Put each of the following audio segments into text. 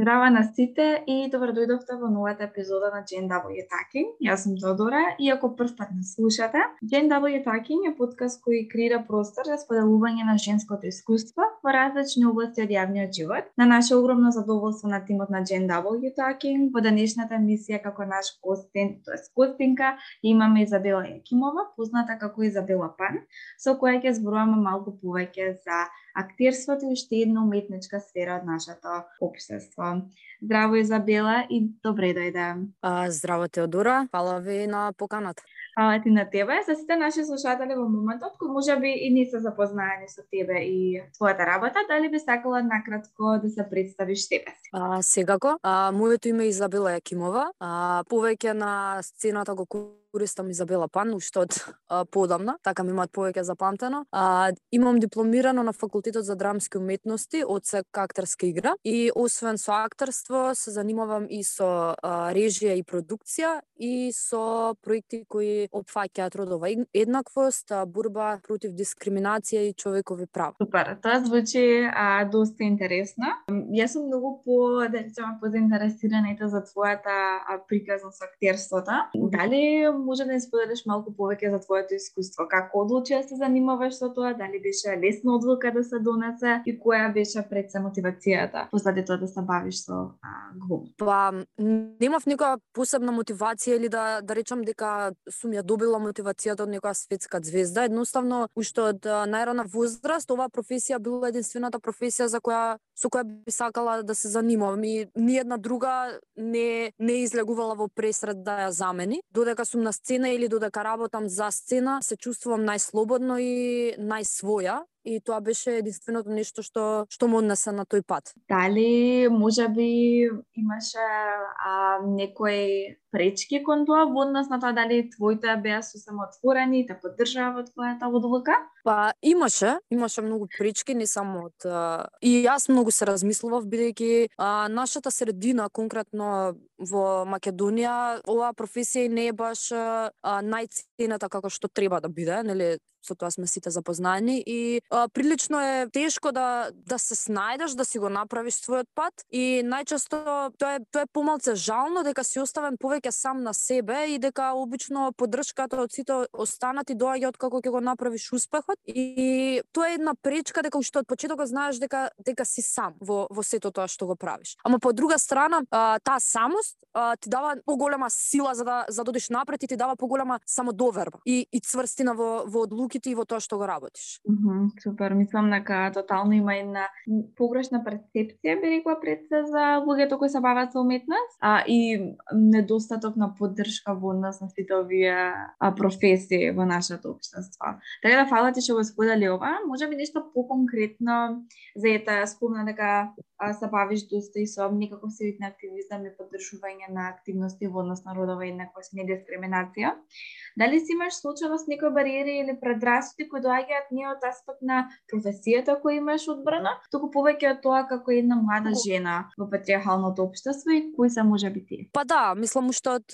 Здрава на сите и добро дојдовте во новата епизода на Gen W Talking. Јас сум Тодора и ако прв пат не слушате, Gen W Talking е подкаст кој креира простор за споделување на женското искуство во различни области од јавниот живот. На наше огромно задоволство на тимот на Gen W Talking, во денешната емисија како наш гостин, гостинка, имаме Изабела Јакимова, позната како Изабела Пан, со која ќе зборуваме малку повеќе за актерството и уште една уметничка сфера од нашето општество. Здраво, Изабела, и добре дојде. Здраво, Теодора, фала ви на поканата. Фала ти на тебе. За сите наши слушатели во моментот, кои можеби и не се запознаени со тебе и твојата работа, дали би сакала накратко да се представиш себе си? Секако. Моето име е Изабела Јакимова. Повеќе на сцената го користам Изабела Пан, уште од подамна, така ми имаат повеќе запамтено. Имам дипломирано на факултетот за драмски уметности, одсек актерска игра, и освен со актерство се занимавам и со режија и продукција и со проекти кои опфаќаат родова еднаквост, борба против дискриминација и човекови права. Супер, тоа звучи доста интересно. Јас сум многу позаинтересирана за твојата приказна со актерството. Дали може да ни споделиш малку повеќе за твоето искуство? Како одлучи да се занимаваш со тоа? Дали беше лесна одлука да се донесе и која беше пред се мотивацијата позади тоа да се бавиш со глум? Немав некоја посебна мотивација или да речам дека сум ја добила мотивацијата од некоја светска звезда. Едноставно, уште од најрана возраст, оваа професија била единствената професија со која би сакала да се занимавам и ниедна друга не излегувала во пресред да ја замени. Додека сум на сцена или додека работам за сцена, се чувствувам најслободно и најсвоја. И тоа беше единственото нешто што ме однесе на тој пат. Дали можеби имаше некои пречки кон тоа во однос на тоа дали твоите беа сосема отворени и те поддржаа во твојата одлука? Имаше многу пречки, не само од и јас многу се размислував бидејќи нашата средина, конкретно во Македонија, оваа професија не е баш најценета како што треба да биде, нели? Со тоа сме сите запознаени и прилично е тешко да се снајдеш, да си го направиш својот пат и најчесто тоа е помалце жално дека си оставен повеќе сам на себе и дека обично поддршката од сите останати доаѓа од како ќе го направиш успехот и тоа е една пречка дека уште од почетокот знаеш дека си сам во сето тоа што го правиш. Ама по друга страна, таа самост ти дава поголема сила за да одиш напред и ти дава поголема самодоверба и цврстина во одлуки и во тоа што го работиш. Супер, мислам дека тотално има една погрешна перцепција, би рекла пред се за луѓето кои се бават со уметност, и недостаток на поддршка во однос на сите овие професии во нашето општество. Така да фала ти што го сподели ова, можеби нешто поконкретно за ета спомна дека се бавиш доста и со некаков вид на активизам и поддржување на активности во однос на родова еднаквост и недискриминација. Дали си имаш случајно с некои бариери или предрасуди кои доаѓаат не од аспект на професијата која имаш одбрана, туку повеќе од тоа како една млада жена во патриархалното општество и кои се можеби тие? Мислам уште од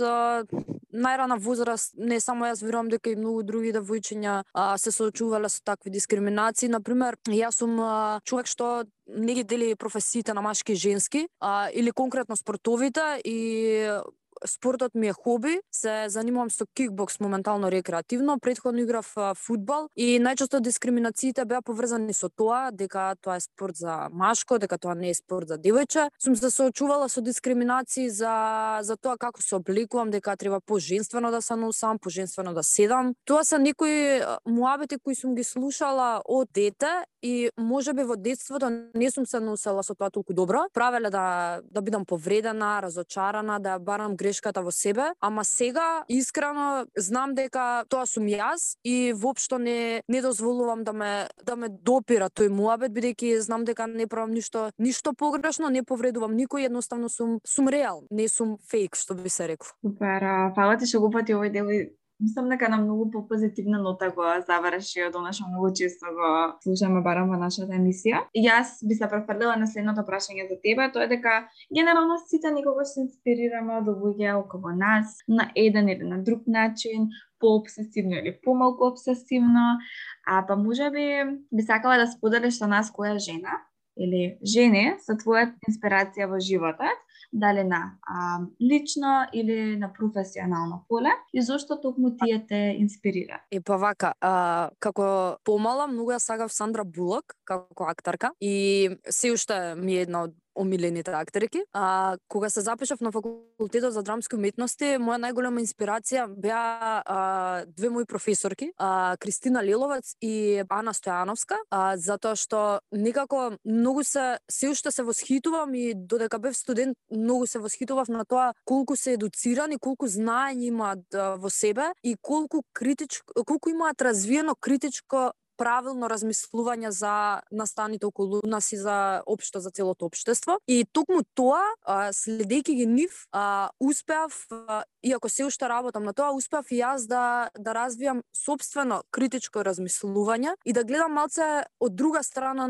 најрана возраст, не само јас, верувам дека и многу други девојчиња се соочувале со такви дискриминации. Например, јас сум човек што не ги дели професиите на машки и женски, или конкретно спортовите, и спортот ми е хоби, се занимавам со кикбокс моментално рекреативно, претходно играв фудбал и најчесто дискриминациите беа поврзани со тоа дека тоа е спорт за машко, дека тоа не е спорт за девојче. Сум се соочувала со дискриминации за тоа како се обликувам, дека треба поженствено да се носам, поженствено да седам. Тоа се некои муабети кои сум ги слушала од дете и можеби во детството не сум се носела со тоа толку добро. Правеле да бидам повредена, разочарана, да барам грешката во себе, ама сега искрено знам дека тоа сум јас и воопшто не дозволувам да ме допира тој муабет, бидејќи знам дека не правам ништо погрешно, не повредувам никој, едноставно сум реал, не сум фейк, што би се рекло. Супер, фала ти што го пати овој дел. Мислам дека на многу попозитивна нота го заврши, од она што многу често го слушаме барам во нашата емисија. Јас би се префрлила на следното прашање за тебе, тоа е дека генерално сите никогаш се инспирираме од луѓе околу нас на еден или на друг начин, пообсесивно или помалку обсесивно, па можеби би сакала да споделиш со нас која жена или жени се твоја инспирација во животот, дали на лично или на професионално поле, и зошто токму тие те инспирира? Па вака, како помала многу ја сагав Сандра Булок како актерка и се уште ми е една од омилените актерки. Кога се запишав на факултетот за драмски уметности, моја најголема инспирација беа две мои професорки, Кристина Лиловец и Ана Стојановска, затоа што некако многу се уште се восхитувам и додека бев студент многу се восхитував на тоа колку се едуцирани, колку знаење имаат во себе и колку имаат развиено критичко правилно размислување за настаните околу нас и за општо за целото општество. И токму тоа, следејќи ги нив, успеав, иако се уште работам на тоа, успеав и јас да развијам собствено критичко размислување и да гледам малце од друга страна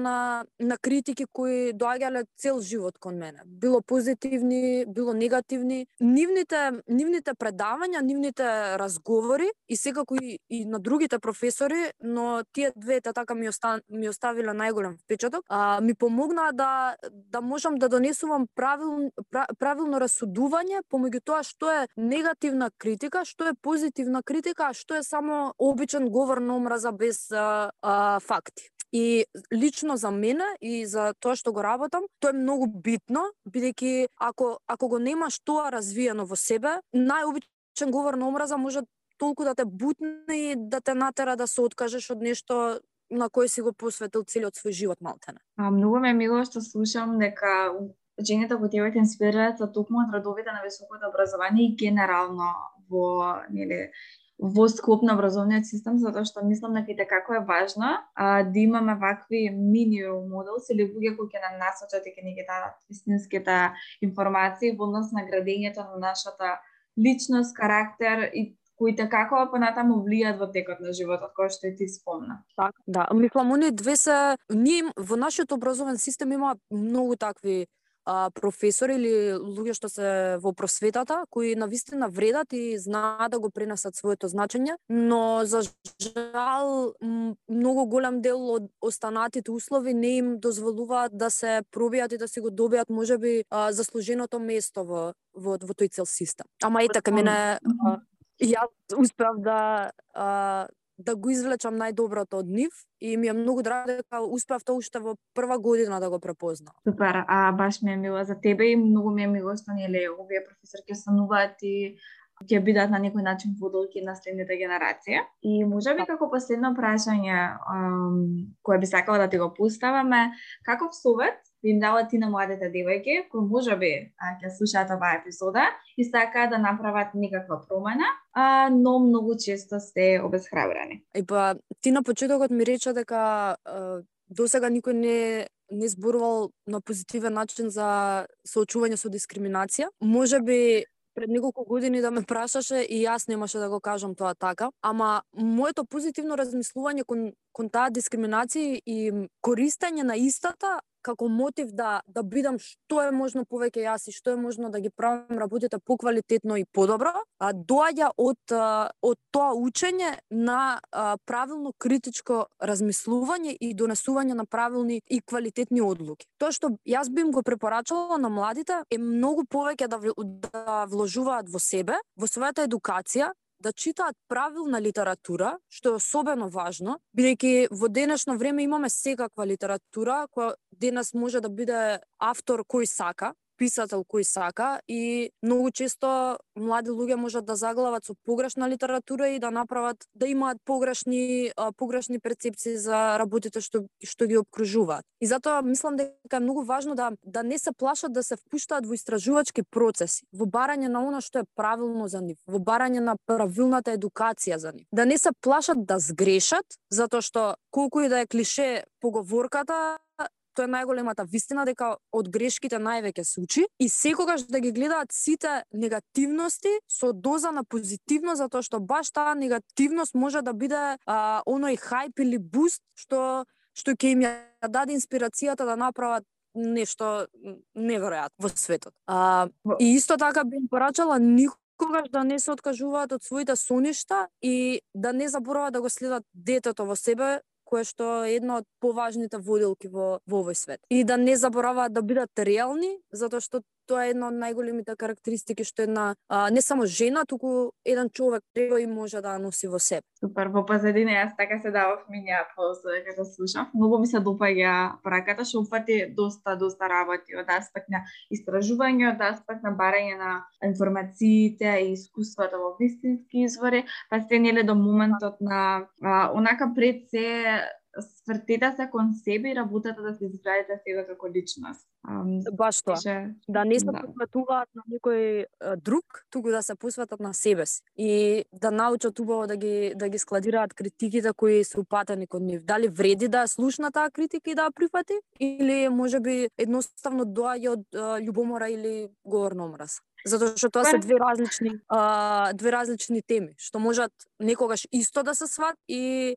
на критики кои доаѓале цел живот кон мене. Било позитивни, било негативни. Нивните предавања, нивните разговори и секако и на другите професори, но тие двете така ми оставиле најголем впечаток. Ми помогнаа да можам да донесувам правилно расудување помеѓу тоа што е негативна критика, што е позитивна критика, а што е само обичен говор на омраза без факти. И лично за мене и за тоа што го работам, тоа е многу битно, бидејќи ако го немаш тоа развиено во себе, најобичен говор на омраза може толку да те бутне и да те натера да се откажеш од нешто на кое си го посветил целиот свој живот малтене. Многу ме е мило што слушам дека жените кои тебе те инспирираат се токму од радовите на високото образование и генерално во склоп на образовниот систем, затоа што мислам дека како е важно да имаме вакви мини моделс или луѓе кои ќе нам насочат и ќе ни ги дадат вистинските информации во однос на градењето на нашата личност, карактер и кои како понатаму влијат во текот на животот, кој што и ти спомна. Така, да. Мислам, оние две се... Ние во нашиот образовен систем има многу такви професори или луѓе што се во просветата, кои навистина вредат и знаат да го пренесат своето значење, но за жал многу голем дел од останатите услови не им дозволуваат да се пробијат и да си го добијат можеби заслуженото место во тој цел систем. Ама и така мене јас успеав да го извлечам најдоброто од нив и ми е многу драго дека успеав тоа уште во прва година да го препознам. Супер, баш ми е мило за тебе и многу ми е мило што овие професорки стануваат и ќе бидат на некој начин водолки на следните генерации. И можеби како последно прашање кое би сакала да ти го поставаме, каков совет би им дала ти на младите девојки кои можеби ќе слушаат оваа епизода и сакаат да направат некаква промена, но многу често се обесхрабрени? Ти на почетокот ми рече дека досега никој не зборувал на позитивен начин за соочување со дискриминација. Можеби пред неколку години да ме прашаше и јас немаше да го кажам тоа така, ама моето позитивно размислување кон таа дискриминација и користење на истата како мотив да бидам што е можно повеќе јас и што е можно да ги правам работите поквалитетно и подобро, доаѓа од тоа учење на правилно критичко размислување и донесување на правилни и квалитетни одлуки. Тоа што јас би им го препорачала на младите е многу повеќе да вложуваат во себе, во својата едукација, да читаат правилна литература, што е особено важно, бидејќи во денешно време имаме секаква литература, која денес може да биде автор кој сака, писател кој сака и многу често млади луѓе можат да заглават со погрешна литература и да направат да имаат погрешни перцепции за работите што ги обкружуваат. И затоа мислам дека е многу важно да не се плашат да се впуштаат во истражувачки процеси, во барање на она што е правилно за нив, во барање на правилната едукација за нив. Да не се плашат да сгрешат, затоа што колку и да е клише поговорката, тоа е најголемата вистина дека од грешките највеќе се учи и секогаш да ги гледаат сите негативности со доза на позитивно, затоа што баш таа негативност може да биде оној хајп или буст што ќе им ја даде инспирацијата да направат нешто неверојатно во светот. И исто така би им порачала никогаш да не се откажуваат од своите соништа и да не забораваат да го следат детето во себе, кое што е една од поважните воделки во овој свет. И да не забораваат да бидат реални, затоа што тоа е една од најголемите карактеристики што една не само жена, туку еден човек треба и може да носи во себе. Супер, во позадина јас така се давав миња после дека слушав. Многу ми се допаѓа пораката, што упати доста работи од аспект на истражување, од аспект на барање на информациите и искуствата во вистински извори, па се нели до моментот на онака пред се свртете се кон себе и работата да се изградите себе како личност. Баш тоа. Да не се посветуваат на некој друг, туку да се посветат на себе си и да научат убаво да ги складираат критиките кои се упатени кон нив. Дали вреди да слушна таа критика и да ја прифати или можеби едноставно доаѓа од љубомора или говор на омраз. Затоа што тоа се две различни теми, што можат некогаш исто да се сват и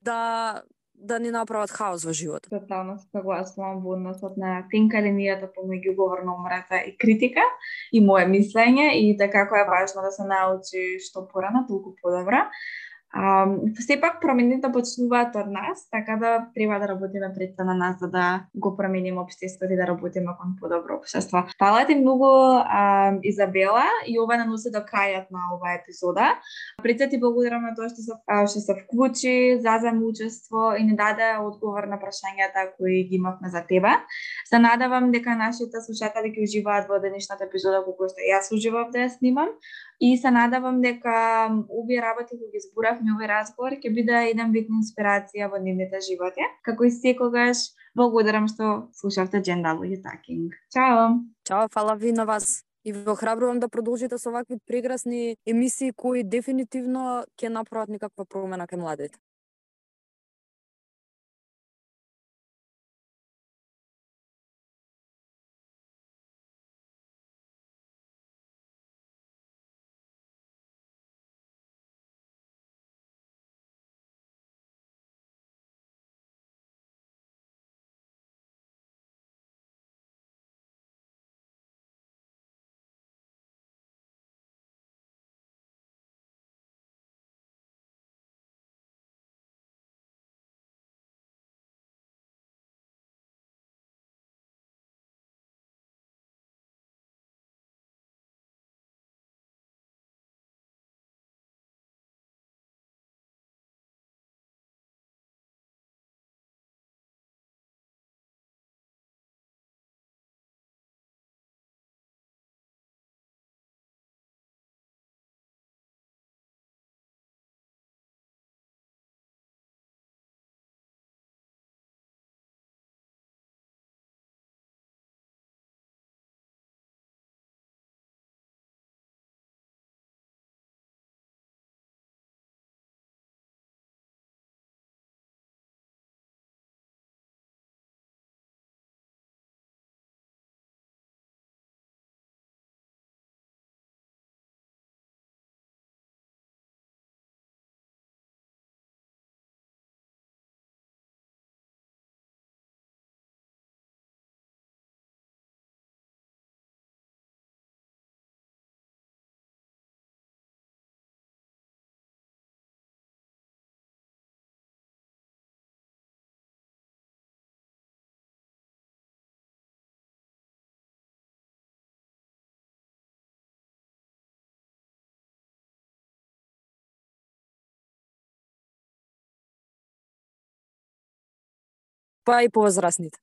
да не направат хаос во животот. Тотално се согласувам во односот на тенка линијата помеѓу говор на омраза и критика и мое мислење и така како е важно да се научи што порано, толку подобро. Сепак промените почнуваат од нас, така да треба да работиме пред се на нас за да го промениме општеството и да работиме кон подобро општество. Фала ти многу, Изабела, и ова не носи до крајот на оваа епизода. Пред се ти благодарам на тоа што се вклучи, зазема учество и не даде одговор на прашањата кои ги имавме за тебе. Се надевам дека нашите слушатели ќе уживаат во денешната епизода колку што јас уживав да ја снимам. И се надевам дека овие работи кои ги зборавме овој разговор ќе биде еден вид инспирација во нивните животи. Како и секогаш, благодарам што слушавте Gender Talking. Чао! Чао, фала ви на вас. И ве охрабрувам да продолжите со вакви прекрасни емисии кои дефинитивно ќе направат некаква промена кај младите. Па и повозрасните.